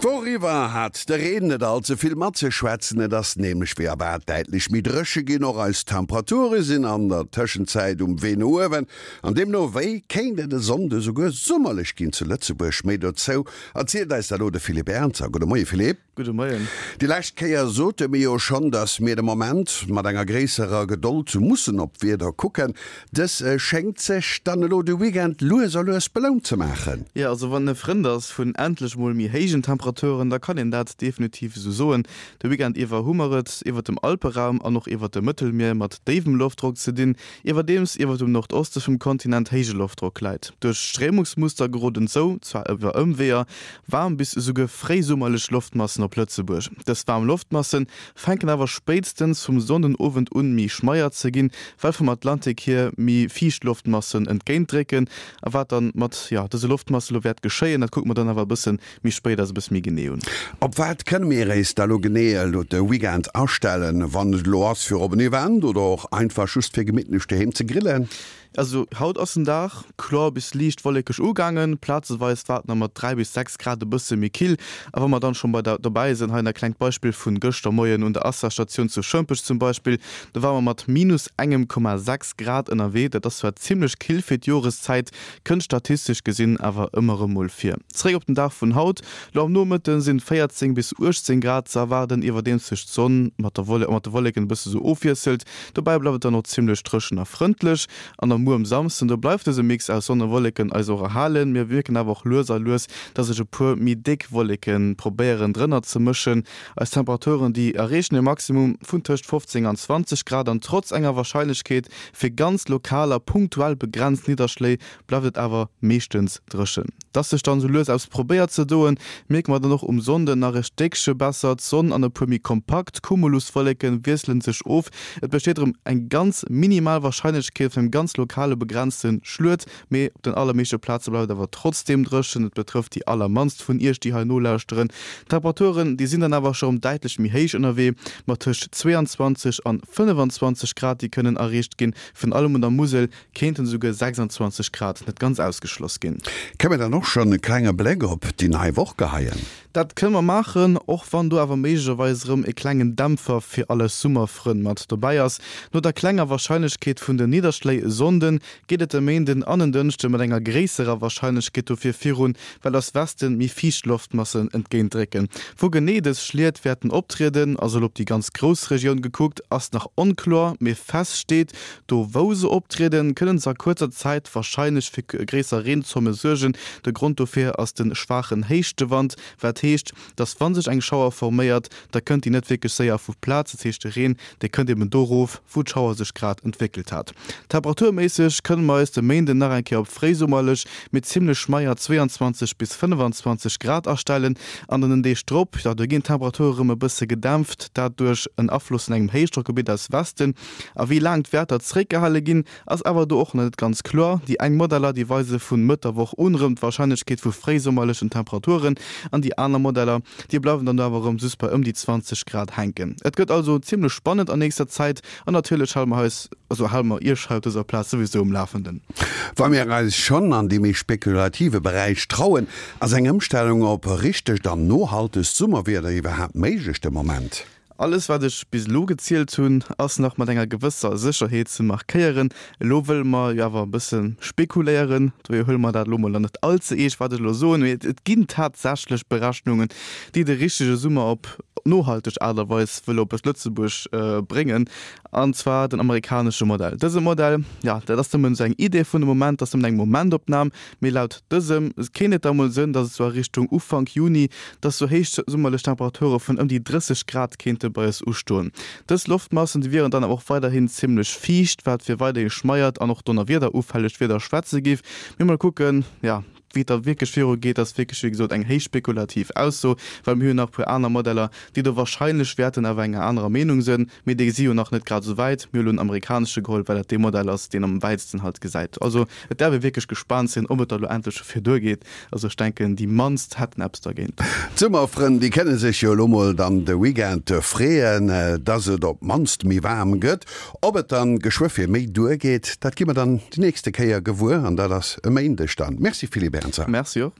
D'Woch iwwer hat de Reen net all ze vill matzeschwätzen, et ass nämlech wéi erwaart däitlech méi dréche ginn. Och eis Temperature sinn an der Tëschenzäit um Wee no uewen an deemno wéi kéint et e Sonnde souguer summerlech ginn zu Lëtzebuerg. Méi dozou erzielt eis da lo de Philippe Ernzer. Gudde Moie Philippe. Gudde Moien. Déi lescht Kéier sote mir jo schonn, dass mir de Moment mat enger gréisserer Gedold mussen op d'Wieder kucken. Dës schéngt sech dann elo de Weekend lues a lues belount ze maachen. Jo, also wann e Frënd ass vun endlech mol méi héijen Temperaturen, da kann een dat definitiv esou soen. De Weekend iwwer hu mer et iwwert dem Alperaum an och iwwert dem Mëttelmier mat déiwem Loftdrock ze dinn, iwwerdeems iwwert dem Nordoste vum Kontinent héije Loftdrock läit. Duerch d'Stréimungsmuster geroden esou, zwar iwwer Ëmweeër, Waarm bis esouguer fréisummerlech Loftmassen op Lëtzebuerg. Dës waarm Loftmasse fänken awer spéitstens vum Sonndenowend un méi schmeier ze ginn, well vum Atlantik hier méi fiicht Loftmassen entgéintdrécken. A wat dann mat jo dëse Loftmasse lo wäert geschéien, dat kucke mer dann awer e bësse méi spéit eis e bësse méi genee un. Op wat kënne mir éis da lo genee elo de Weekend astellen, wann et elo ass fir op en Event oder och einfach just fir gemittlech doheem ze grillen? Also haut ass den Dag kloer bis liicht wollekeg ugaangen, plazeweis war et nach mat 3 bis 6 Grad e bësse méi kill. A wa mer dann schonn bei der dobäi sinn, hei nach e klengt Beispill vun gëschter Moien un der Assa-Statioun zu Schëmpech zum Beispill, do ware mer mat minus engem Komma 6 Grad ënnerwee. Dat ass zwar zimmlech kill fir d'Joreszäit, kënnt statistesch gesinn awer ëmmer erëm mol vir. Zeréck op den Dag vun haut, Lo am Nomëtte sinn 14 bis 18 Grad ze erwaarden, iwwerdeems sech d'Sonn mat der mat de Wolleken e bësse sou ofwiesselt. Dobäi bleift et dann och zimmlech dréchen a frëndlech. An am Muer um Samsden, do bleift dëse Mix aus Sonn a Wolleken eis och erhalen. Mir mierken awer och lues a lues, dass sech e puer méi déck Wolleke probéieren drënner ze mëschen. Eis Temperaturen, déi erreechen e Maximum vun tëscht 15 an 20 Grad an trotz enger Warscheinlechkeet fir ganz lokal a punktuell begrenzt Nidderschléi bleift et awer meeschtens dréchen. Dass sech dann sou lues eppes probéiert ze doen, mierke mer dann och um Sonnden nach e Stéckche besser. D'Sonn an e puer méi kompakt Cumuluswolleke wiessele sech of. Et besteet erëm eng ganz minimal Warscheinlechkeet vun engem ganz lokale begrenzte Schluet, mee op den allermeeschte Plaze bleift et awer trotzdeem dréchen. Et betrëfft déi allermannst vun Iech, déi hei nolauschteren. D'Temperaturen, déi sinn dann awer scho rëm däitlech méi héich ënnerwee, mat tëscht 22 an 25 Grad, déi kënnen erreecht ginn, virun allem un der Musel Kéinten esouguer 26 Grad net ganz ausgeschloss ginn. Kënne mir dann och schonn e klenge Bléck op déi nei Woch geheien? Dat kënne mer maachen, och wann do awer méiglecherweis erëm e klengen Dämpfer fir all eis Summerfrënn mat dobäi ass. No der klenger Warscheinlechkeet vun den Nidderschléi e Sonnden, geet et e Méinden an en Dënschde mat enger gréisserer Warscheinlechkeet dofir virun, well aus Westen méi fiicht Loftmassen entgéintdrécken. Wou genee dës Schliet wäerten optrieden, also elo op déi ganz grouss Regioun gekuckt, ass nach onkloer, mee fest steet, Do wou se optrieden, kënnen se a kuerzer Zäit warscheinlech fir gréisser Reenzomme suergen. De Grond dofir ass de schwaachen Héichtewand, wat heescht, dass wa sech eng Schauer forméiert, da kënnt déi net wierklech séier vu Plaz. Dat heescht, de Reen, dee kënnt eben do rof, wou d'Schauer sech grad entwéckelt hat. Temperaturméisseg kënne mer eis de Méinden nach eng Kéier op fréisummerlech, mee zimmlech schmeier 22 bis 25 Grad astellen. An den Deeg drop, jo, do ginn d'Temperature rëm e bësse gedämpft, dat duerch en Afloss vun engem Héichdrockgebitt aus Westen. A wéi laang d'Wäerter zeréckgehale ginn, ass awer do och nach net ganz kloer. Déi eng Modeller, déi weise vu Mëtt der Woch un erëm d'Warscheinlechkeet vu fréisummerlechen Temperaturen an déi aner Modeller, déi bleiwen dann do awer erëm just bei ëm déi 20 Grad hänken. Et gëtt also zimmlech spannend an nächster Zäit an natierlech hale mer eis, also hale mer Iech hei op dëser Plaz souwisou um Lafenden. Wa mir eis schonn an dee méi spekulative Beräich trauen, ass eng Ëmstellung op richtegt an nohaltegt Summerwieder iwwerhaapt méiglech de Moment? Alles wat ech bis elo gezielt hunn, ass nach mat enger gewësser Sécherheet ze markéieren. Elo wëlle mer jo awer e bësse spekuléieren, dohier huele mer dat elo mol dann net all ze eescht wat ech elo soen, mee et ginn tatsächlech Berechnungen, déi de richtege Summer op nohalteg Aart a Weis wëlle op Lëtzebuerg bréngen, an zwar den amerikanesche Modell. Dëse Modell, jo, dat ass nëmmen esou eng Idee vun de Moment, dat ass nëmmen eng Momentopnam, Mee laut dësem kéint et da mol sënn, dass et sou a Richtung Ufank Juni, dass sou héich summerlech Temperature vun ëm déi 30 Grad kéinte bei eis ustoen. Dës Loftmassen, déi wieren dann awer och weiderhin zimmlech fiicht, wat fir weiderhi schmeiert an och donnerwiederufällegt Wieder schwätze géif. Mee mol kucken, jo, wéi et da wierklech viru geet, ass wierklech wéi gesot eng héich spekulativ Ausso, well mir hunn nach e puer aner Modeller, déi do warscheinlech wäerten awer enger anerer Meenung sënn. Mee déi si jo nach net grad esou wäit. Mir hu lo den amerikanesche geholl, well dat dee Modell ass, deen am wäitsten halt gesäit. Also et däerf ee wierklech gespaant sinn, ob et da lo endlech dofir duergeet. Also ech denken, déi mannst hätten eppes dergéint. D'Summerfrënn, déi kënne sech jo elo mol dann de Weekend freeën, dass et op d'mannst méi waarm gëtt. Ob et dann geschwë fir méi duergeet, dat gi mer dann déi nächste Kéier gewuer an dat ass e Méindeg dann. Merci Philippe Ernzer. Merci och.